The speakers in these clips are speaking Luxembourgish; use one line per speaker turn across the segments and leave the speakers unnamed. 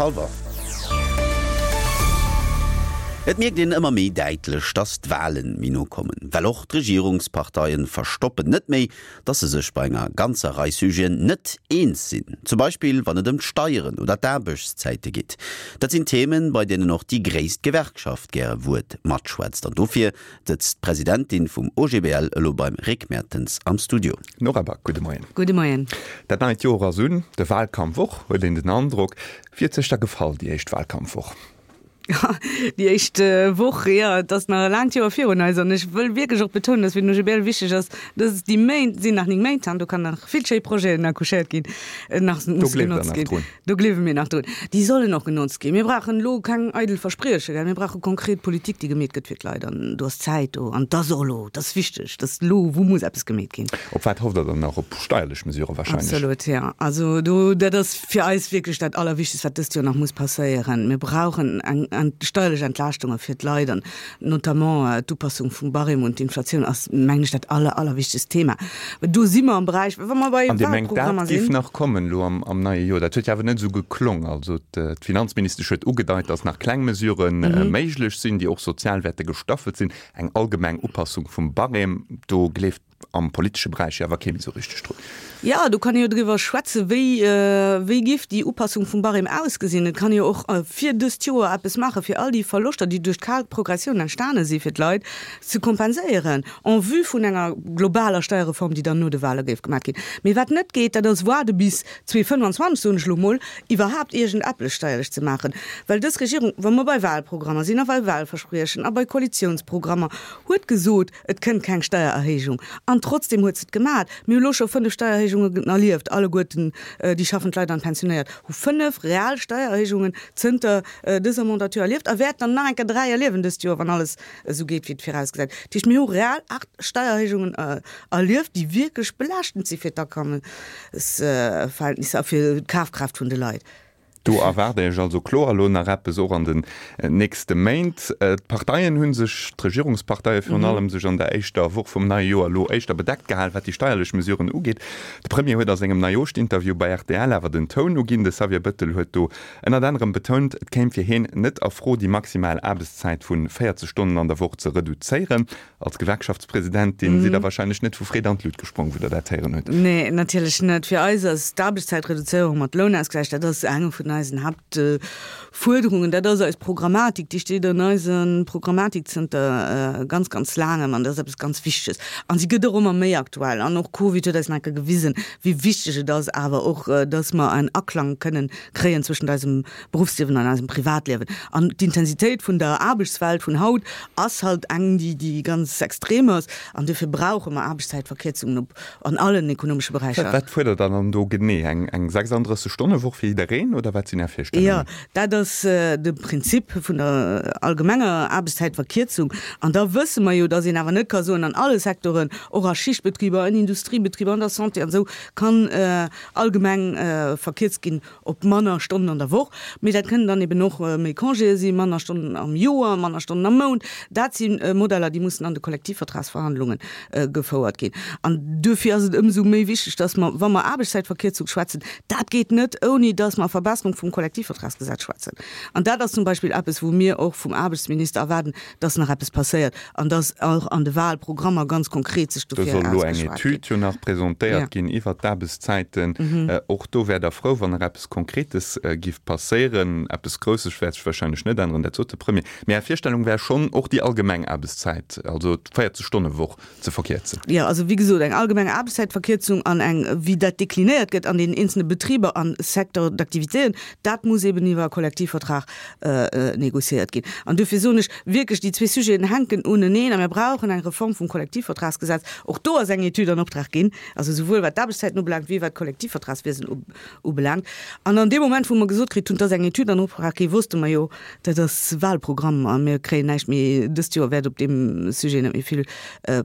Hallwer. Et mierkt een ëmmer méi däitlech, datt d'Wahlen méi no kommen. Well och d'Regierungsparteien verstoppen net méi, datt se sech bei enger ganzer Rei Sujeten net eens sinn. Zum Beispill wann et ëm d'Steieren oder d'Aarbechtszäite geet. Dat sinn Themen, bei deenen och déi gréisst Gewerkschaft gäre Wuert matschwätzt. An dofir sëtzt d'Presidentin vum OGBL elo beim Rick Mertens am Studio.
Nora Back, gudde Moien.
Gudde Moien.
Dat neit Joer ass un, de Wahlkampf och, huet een den Androck. Wéi huet sech da gefall, déi éischt Wahlkampfwoch?
Déi éischt Woch, jo, et ass nach e laangt Joer virun eis an ech wëll wierklech och betounen, dass fir den OGBL wichteg ass, dass déi Méint sinn nach 9 Méint an do kann nach vill schéi Projeten accouchéiert ginn, nach
musse genotzt ginn.
Do gleewe mir nach drun. Déi sollen och genotzt ginn. Mir brauchen elo keng eidel Versprieche, gell. Mir brauche konkret Politik, déi gemeet gëtt fir d'Leit. An do ass d'Zäit do. An et ass och elo, et ass wichteg, dass elo, wou muss eppes gemeet ginn.
Op wat hofft Der dann nach? Op steierlech Mesurë wahrscheinlech?
Absolut, jo. Also do, dat ass fir eis wierklech dat Allerwichtegst, wat dëst Joer nach muss passéieren. Mir brauchen eng steierlech Entlaaschtunge fir d'Leit an Notamment d'Upassung vum Barème un d'Inflatioun ass, mengen ech, dat aller, allerwichtegst Thema. Do si mer am Beräich, wa mer bei
An Dir mengt, dat
Wahlprogrammer
géif
sinn.
nach kommen elo am neie Joer? Dat huet jo awer net esou geklong. Also d'Finanzministesch huet ugedeit, datt nach kleng Mesurë méiglech sinn, déi och sozial wäerte gestaffelt sinn. Eng allgemeng Upassung vum Barème, do gleeft am politesche Beräich jo awer kee méi esou richteg drun.
Jo, do kann ee jo driwwer schwätzen, wéi, wéi giff déi Upassung vum Barème ausgesinn. Et kann ee jo och fir dëst Joer eppes maachen, fir all déi Verloschter, déi duerch d'kal Progressioun entstane si fir d'Leit, ze kompenséieren, en vue vun enger globaler Steierreform, déi dann no de Wahle géif gemaach ginn. Mee wat net geet, dat ass waarde bis 2025, soen ech elo mol, iwwerhaapt iergend eppes steierlech ze maachen. Well dës Regierung, wa mer bei Wahlprogrammer sinn a bei Wahlverspriechen a bei Koalitionsprogrammer, huet gesot, Et kënnt keng Steiererhéijung. An trotzdem huet se et gemat. Mir hu lo scho 5 Steiererhéijungen erlieft, alleguerten déi schaffend Leit an d'Pensionéiert hu 5 real Steiererhéijungen zënter dëser Mandature erlieft a wäerten der nach eng Kéier 3 erliewen dëst Joer, wann alles esou geet, wéi et virausgesäit. Dat heescht, mir hu real 8 Steiererhéijungen erlieft, déi wierklech belaaschtend si fir d'Akommesverhältnisser a fir d'Kafkraaft vun de Leit.
Do erwaart Iech also kloer elo nach eppes, och an den nächste Méint. D'Parteien hu sech, d'Regierungsparteie virun allem, sech an der éischter Woch vum neie Joer elo éischter bedeckt gehal, wat déi steierlech Mesuren ugeet. De Premier huet a sengem Neijooschtinterview bei rtl awer den Toun uginn. De Xavier Bëttel huet do ënnert anerem betount, et kéim fir hien net a Fro, déi maximal Aarbechtszäit vu 40 Stonnen an der Woch ze reduzéieren. Als Gewerkschaftspresidentin sidd Der wahrscheinlech net vu Freed an d'Lut gesprong, wou Der dat héieren hutt.
Nee, natierlech net. Fir eis ass d'Aarbechtszäitreduzéierung mat Lounausgläich, dat ass eng vun eisen Haaptfuerderungen. Dat ass eis Programmatik, déi steet an eiser Programmatik zënter ganz, ganz laangem an dat ass eppes ganz Wichteges. An si gëtt och ëmmer méi aktuell. An och Covid huet eis nach eng Kéier gewisen, wéi wichteg et ass awer och, dass mer en Aklang kënnen kréien zwëschent eisem Beruffsliewen an eisem Privatliewen. An d'Intensitéit vun der Aarbechtswelt vun haut ass halt eng, déi, déi ganz extrem ass. An duerfir brauche mer Aarbechtszäitverkierzungen op, an allen ekonomesche Beräicher.
Wat fuerdert Der dann do genee? Eng, eng 36 Stonne Woch fir jiddereen oder wat sinn Är Virstellungen?
Jo, dat ass de Prinzip vun der allgemenger Aarbechtszäitverkierzung. An da wësse mer jo, dass een awer net ka soen, an alle Secteuren, och a Schichtbetriber, an Industriebetriber, an der Santé an esou, kann allgemeng verkierzt ginn. op manner Stonnen an der Woch, mee dat kënnen dann eben och méi Congéë sinn, manner Stonnen am Joer, manner Stonnen am Mount. Dat si Modeller, déi mussen an de Kollektivvertragsverhandlunge gefouert ginn. An duerfir ass et ëmsou méi wichteg, dass mer, wa mer Aarbechtszäitverkierzung schwätzen, dat geet net, ouni dass mer Verbesserung vum Kollektivvertragsgesetz schwätzen. An dat ass zum Beispill eppes, wou mir och vum Aarbechtsminister erwaarden, dass nach eppes passéiert an dass och an de Wahlprogrammer ganz konkret sech
Do
dofir
soll elo eng
ausgeschwat ginn.
Etüd jo nach presentéiert ginn iwwert d'Aarbechtszäiten. Och do wäert Der frou, wann nach eppes Konkretes giff passéieren. Eppes Grousses wäert sech wahrscheinlech net änneren, dat sot de Premier. Mee Är Virstellung wär schonn, och déi allgemeng Aarbechtszäit, also d'Véierzeg-Stonne-Woch, ze verkierzen.
Jo, also wéi gesot, eng allgemeng Aarbechtszäitverkierzung an eng, wéi dat deklinéiert gëtt an den eenzelne Betriber an Secteur d'activitéen, dat muss eben iwwer e Kollektivvertrag négociéiert ginn. An duerfir soen ech wierklech, déi zwee Sujeten hänken uneneen a mir brauchen eng Reform vum Kollektivvertragsgesetz. Och do ass eng Etüd an Optrag ginn, also souwuel wat d'Aarbechtszäiten ubelaangt wéi wat d'Kollektivvertragswiesen ubelaangt. An an deem Moment, wou mer gesot kritt hunn, et ass eng Etüd an Optrag ginn, wosste mer jo, dat ass Wahlprogramm a mir kréien näischt méi, dëst Joer wäert op deem Sujet net méi vill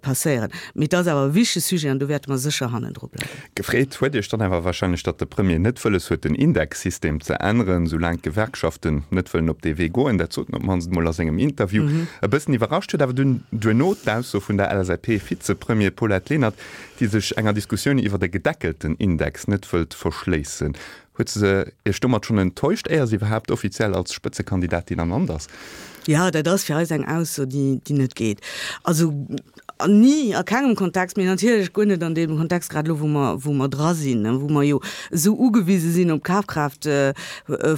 passéieren. Mee et ass awer e wichtege Sujet an do wäerte mer sécher hannendru bleiwen.
Gefreet huet Iech dann awer wahrscheinlech, datt de Premier net wëlles huet, den Indexsystem ze änneren, soulaang d'Gewerkschaften net wëllen op dee Wee goen. Dat sot en op d'mannst emol a sengem Interview. E bëssen iwwerrascht huet awer dunn duerno d'Ausso vun der LSAP-Vizepremier Paulette Lenert, déi sech enger Diskussioun iwwert e gedeckelten Index net wëllt verschléissen. Huet se Iech domat schonn enttäuscht, éier se iwwerhaapt offiziell als Spëtzekandidatin ernannt ass?
Jo, dat ass fir eis eng Ausso, déi net geet. Also ni a kengem Kontext, mee natierlech guer net an deem Kontext, grad elo wou mer, wou mer dra sinn, wou mer jo esou ugewise sinn op d'Kafkraaft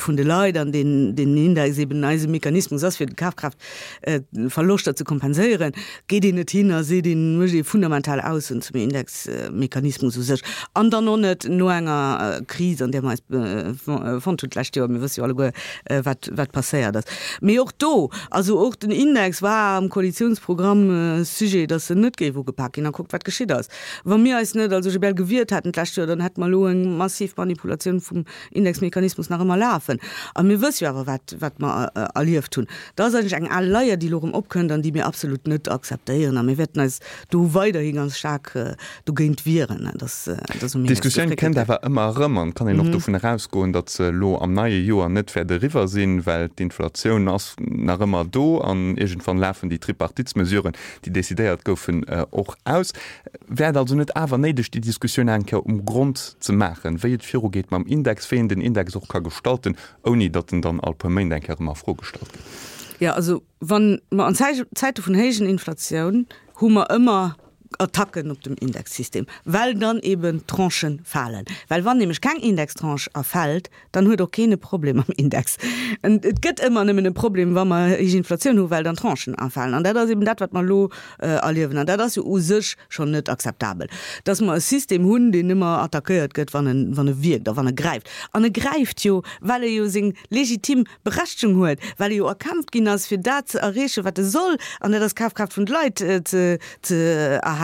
vun de Leit an deen deen Index eben eise Mechanismus ass, fir d'Kafkraaftverloschter ze kompenséieren, geet een net hin a seet een, mécht ee fundamental Aussoen zum Indexmechanismus u sech an dann och net no enger Kris, an där mer eis fonnt hunn d'lescht Joer. Mir wësse jo alleguer, wat, wat passéiert ass. Mee och do, also och den Index war am Koalitionsprogramm Sujet, datt en net géif ugepak ginn. A kuckt, wat geschitt ass. Wa mir eis net als OGBL gewiert hätten d'lescht Joer, dann hätte mer elo eng massiv Manipulatioun vum Indexmechanismus nach ëmmer lafen. A mir wësse jo awer, wat, wat mer erlieft hunn. Dat ass eigentlech eng al Leier, déi elo erëm opkënnt an déi mir absolut net akzeptéieren. A mir wäerten eis do weiderhi ganz staark dogéint wieren, dass,
dass um Index D'Diskussioun gefréckelt kënnt gëtt. awer ëmmer erëm an et kann een och dovun erausgoen, datt se elo am neie Joer net wäert eriwwer sinn, well d'Inflatioun ass nach ëmmer do an iergendwann lafen déi Tripartitsmesuren, déi decidéiert goufen, och aus. Wär et also net awer néideg, déi Diskussioun eng Kéier um Grond ze maachen, wéi et virugeet mam Index, wéi een den Index och ka gestalten, ouni datt en dann all puer Méint eng Kéier erëm a Fro gestallt gëtt?
Jo, also wa mer an Zäite vun héijen Inflatioun hu mer ëmmer Attacken op dem Indexsystem, well dann eben Tranchen falen. Well wann nämlech keng Indextranche erfält, dann huet och keen e Problem mam Index. Et gëtt ëmmer nëmmen e Problem, wa mer héich Inflatioun hu well dann Tranchen erfalen. An dat ass eben dat, wat mer elo erliewen. An dat ass jo u sech schonn net akzeptabel, dass mer e System hunn, deen ëmmer attackéiert gëtt, wann en, wann e wierkt a wann e gräift. An e gräift jo, well e jo seng legitim Berechtegung huet, well e jo erkämpft ginn ass, fir dat ze erreechen, wat e soll, an dat ass d'Kafkraaft vun de Leit ze, ze erhalen.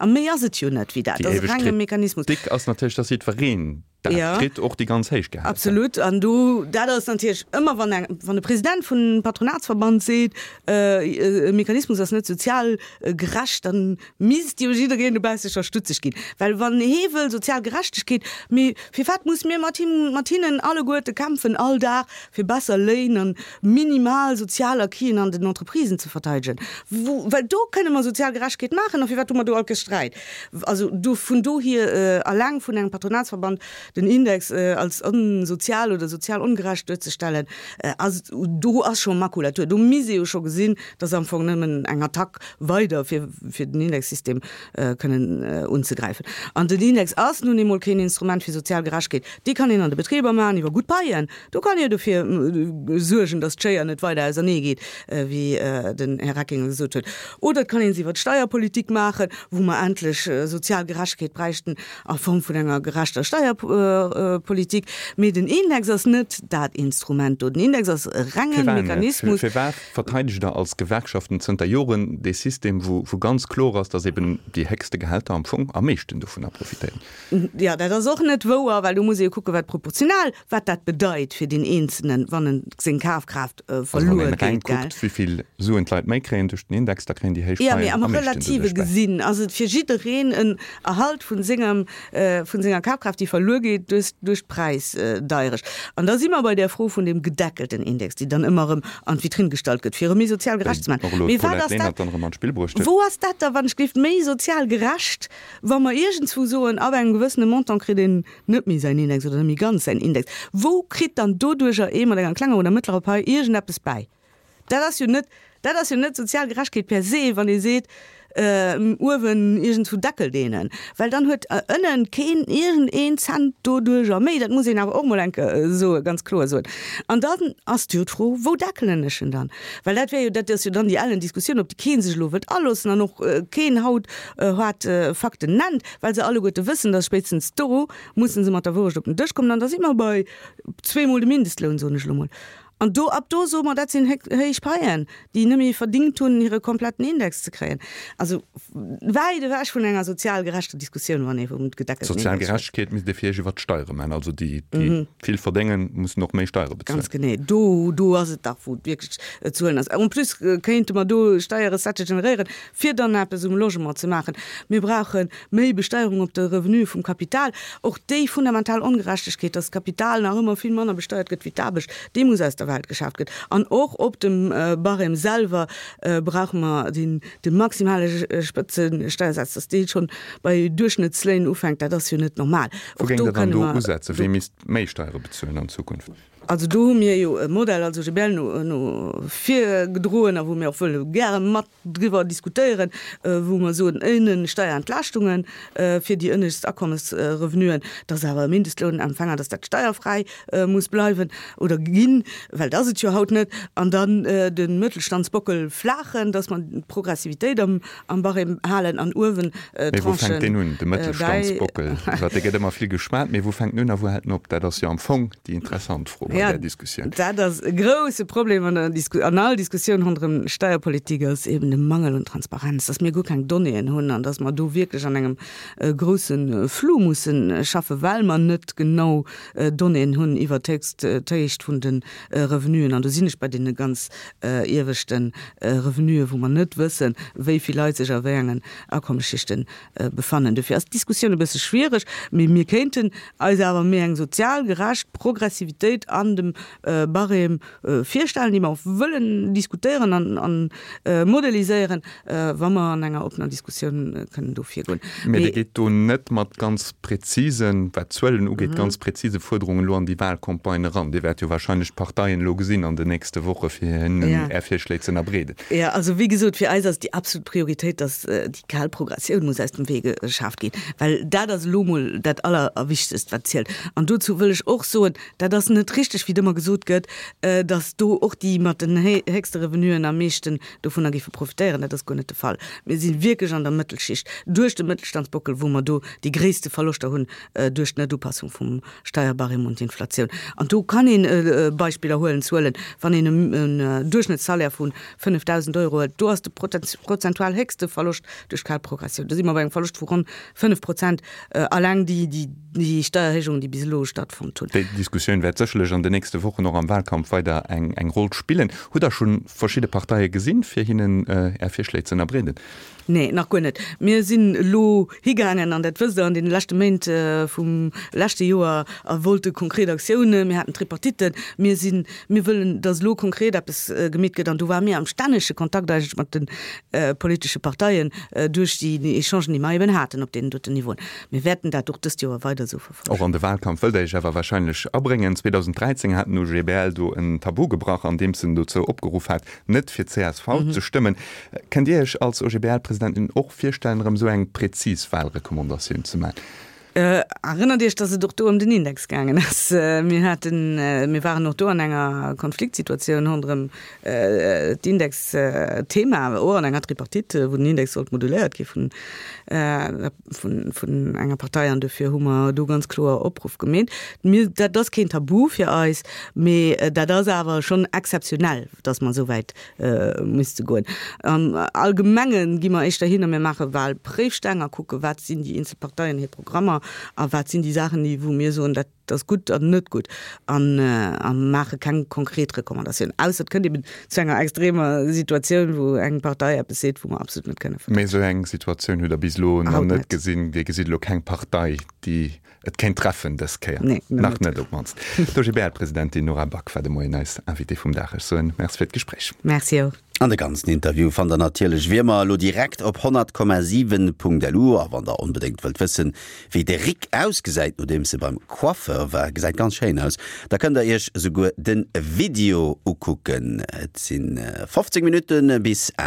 A méi ass et jo net wéi dat.
Dat ass e renge Mechanismus. Déi éiweg Kritik ass natierlech, dass jiddwereen dat kritt, och déi ganz héich
Gehälter. Absolut. An do, dat ass natierlech ëmmer, wann eng, wann e President vun Patronatsverband seet, e Mechanismus ass net sozial gerecht, dann misst jo jiddereen dobausse scho stutzeg ginn. Well wann hee wëll sozial Gerechtegkeet, mee firwat muss mir mat him, mat hinnen alleguerte kämpfen all Dag fir besser Léin an minimal sozial Acquisen an den Entreprisen ze verteidegen? Wou, well do kënne mer sozial Gerechtegkeet maachen a firwat hu mer do all Kéiers Sträit? Also do, vun dohier alleng vun engem Patronatsverband den Index als onsozial oder sozial ongerecht duerzestellen, ass, do ass scho Makulatur. Do misst ee jo scho gesinn, dass am Fong nëmmen eng Attack weider fir fir den Indexsystem kënnen unzegräifen. An den Index ass nun eemol keen Instrument fir sozial Gerechtegkeet. Déi kann een an de Betriber maachen iwwer gutt Paien. Do kann ee dofir suergen, dass d'Schéier net weider ausernee geet, wéi den Här Reckinger gesot huet. Oder et kann ee se iwwer d'Steierpolitik maachen, wou mer endlech sozial Gerechtegkeet bräichten a Form vun enger gerechter Steierpolitik. Mee den Index ass net dat Instrument do. Den Index ass e renge Mechanismus.
Firwat verteidegt Der als Gewerkschaften zënter Joren dee System, wou ganz kloer ass, datt eben déi héchste Gehälter am Fong am meeschten dovunner profitéieren?
Jo, dat ass och net wouer, well do muss ee jo kucken, wat proportional, wat dat bedeit fir deen Eenzelen, wann en seng Kafkraaft
verluer geet. Also wann een reng kuckt, wéi vill Suen d'Leit méi kréien duerch den Index, da kréien déi héich
Paien am meeschten doduerch bäi. Jo, mee am Relative gesinn ass et fir jiddereen en Erhalt vun sengem, vun senger Kafkraaft, déi verluer geet duerch, duerch d'Präisdeierecht. An da si mer bei där Fro vun deem gedeckelten Index, déi dann ëmmer erëm an d'Vitrinn gestallt gëtt, fir e méi sozial gerecht ze maachen. Mee wat ass dat, wou ass dat da, wann ech gleeft, méi sozial gerecht, wa mer iergendswou soen, ab engem gewëssene Montant kritt een net méi säin Index oder net méi ganz säin Index? Wou kritt dann doduercher ee mat enger klenger oder mëttlerer Pai iergendeppes bäi? Dat ass jo net, dat ass jo net sozial Gerechtegkeet per se, wann ee seet, uewen iergendswou deckelt een en, well dann huet ënnen keen iergend een Cent doduercher méi. Dat muss een awer och mol eng Kéier soen, ganz kloer soen. An dann ass jo d'Fro, wou deckelen ech en dann? Well dat wär jo, dat ass jo dann déi ellen Diskussioun, op déi kee sech elo wëllt aloossen an och keen haut hart Fakten nennt, well se alleguerte wëssen, dass spéitstens do musse se mat der Wourecht op den Dësch kommen. An da si mer bei zweemol de Mindestloun, soen ech elo mol. An do, ab do soe mer, dat sinn héich Paien, déi net méi verdingt hunn, hire kompletten Index ze kréien. Also wäit ewech vun enger sozial gerechter Diskussioun, wann ee vum
gedeckelten Index schwätzt. Sozial Gerechtegkeet misst ee fir Iech iwwert d'Steiere maachen. Also déi, déi vill verdéngen, mussen och méi Steiere
bezuelen. Ganz genee. Do, do ass et dach, wou et wierklech ze huelen ass. En plus kéinte mer do Steierrecettë generéieren, fir dann eppes um Logement ze maachen. Mir brauche méi Besteierung op de Revenu vum Kapital. Och déi fundamental Ongerechtegkeet, dass d'Kapital nach ëmmer vill manner besteiert gëtt wéi d'Aarbecht, déi muss aus der. der Welt geschaaft gëtt. An och op dem Barème selwer brauche mer deen de maximale Spëtzesteiersaz, dass dee schonn bei Duerchschnëttsléin ufänkt, dat ass jo net normal.
Wou géing Der dann do usetzen? Wee misst méi Steiere bezuelen an Zukunft?
Also do hu mir jo e Modell als OGBL no no virgedroen a wou mir och wëlle gäre mat driwwer diskutéieren, wou mer soen, ënnen Steierentlaaschtunge fir déi ënnescht Akommesrevenuen, dass awer e Mindestlounempfänger, dass dat steierfräi muss bleiwen oder ginn, well dat ass et jo haut net, an dann de Mëttelstandsbockel flaachen, dass mer d'Progressivitéit am am Barème halen an uewen
Mee wou fänkt deen un, de Mëttelstandsbockel? Iwwer dee gëtt ëmmer vill geschwat, mee wou fänkt en un a wou hält en op? Dat ass jo am Fong déi interessant Fro bei där Diskussioun.
Dat ass e grouse Problem an der Disku, an all Diskussioun ronderëm Steierpolitik ass eben de Mangel un Transparenz, dass mir guer keng Donnéeën hunn an dass mer do wierklech an engem grousse Flou musse schaffen, well mer net genau Donnéeën hunn iwwer d'Héicht vun de Revenuen. An do sinn ech bei deene ganz ieweschte Revenuen, wou mer net wëssen, wéi vill Leit sech a wéi engen Akommesschichte befannen. Dofir ass d'Diskussioun e bësse schwiereg, mee mir kéinten eis awer méi eng sozial gerecht Progressivitéit an dem Barème virstellen, déi mer och wëllen diskutéieren an modeliséieren, wa mer an enger oppener Diskussioun kënnen do virgoen.
Mä Dir geet do net mat ganz prezisen, wat d'Zuelen ugeet, ganz prezise Fuerderungen elo an déi Wahlcampagne eran. Dir wäert jo wahrscheinlech d'Parteien elo gesinn an den nächste Woche fir hinnen Är Virschléi ze ënnerbreeden.
Jo, also wéi gesot, fir eis ass déi absolut Prioritéit, datt déi kal Progressioun muss aus dem Wee geschaaft ginn, well dat ass elo mol dat Allerwichtegst, wat zielt. An dozou wëll ech och soen, Dat ass net richteg, wéi et ëmmer gesot gëtt, datt do och déi mat den héchste Revenuen am meeschten dovunner géife profitéieren. Dat ass guer net de Fall. Mir si wierklech an der Mëttelschicht, duerch de Mëttelstandsbockel, wou mer do déi gréisste Verloschter hunn duerch d'Netupassung vum Steierbarème un d'Inflatioun. An do kann een Beispiller huelen, Zuelen, wann een en Duerchschnëttssalaire vu 5.000 Euro huet, do ass de prozentual héchste Verloscht duerch d'kal Progressioun. Do si mer bei engem Verloscht vu ronn 5 Prozent alleng déi déi Steierhéijungen, déi bis elo stattfonnt hunn.
Déi Diskussioun wäert sécherlech an den nächste Wochen och am Wahlkampf weider eng Roll spillen. Hutt Der scho verschidde Parteie gesinn, fir hinnen Är Virschléi ze ënnerbreeden?
Nee, nach guer net. Mir sinn elo higaangen, an dat wësst Der, an deene leschte Méint vum leschte Joer a wollte konkret Aktiounen. Mir haten Tripartitten. Mir sinn, mir wëllen, datt elo konkret eppes gemeet gëtt. An do ware mir am stännege Kontakt eigentlech mat de politesche Parteien duerch déi Echangen, déi mer eben haten op deenen doten Niveauen. Mir wäerten dat och dëst Joer weider esou verfollegen.
Och an de Wahlkampf wëllt Der Iech awer wahrscheinlech abréngen. 2013 hat den OGBL do en Tabu gebrach, andeems en dozou opgeruff hat, net fir csv ze stëmmen. Kënnt Dir Iech als OGBL-Presidentin och virstellen, erëm esou eng präzis Wahlrecommandatioun ze maachen?
Erënnert Iech, dass et och do ëm den Index gaangen ass. Mir haten, mir waren och do an enger Konfliktsituatioun ronderëm d'Indexthema, och an enger Tripartite, wou den Index sollt moduléiert gi vun vun enger Partei an dofir hu mer do ganz kloer Opruff gemeet. Mir, dat ass keen Tabu fir eis, mee dat ass awer schonn exzeptionell, dass mer esou wäit misste goen. Am Allgemenge gi mer éischter hin a mir maache Wahlpréifsteng a kucke wat sinn déi eenzel Parteien hir Programmer a wat sinn déi Saachen, déi wou mir soen, dat ass gutt an net gutt an a maache keng konkret Recommandatioun, ausser et kënnt eben zu enger extremer Situatioun, wou eng Partei eppes seet, wou mer absolut net kënne
vertrieden. Mee esou eng Situatioun hutt Der bis elo nach net gesinn. Dir gesitt elo keng Partei, déi et kéint treffen dës Kéier?
Nee,
nach net op d'mannst. D'OGBL-Presidentin Nora Back war de Moien eis Invitée vum Dag. Ech soen Merci fir d'Gespréich.
Merci och.
An de ganzen Interview fannt der natierlech wéi ëmmer elo direkt op 100,7.lu. A wann der onbedéngt wëllt wëssen, wéi de Rick ausgesäit nodeems e beim Coiffeur war, gesäit ganz schéin aus, da kënnt der iech esouguer de Video ukucken. Et sinn 15 Minutte bis 8.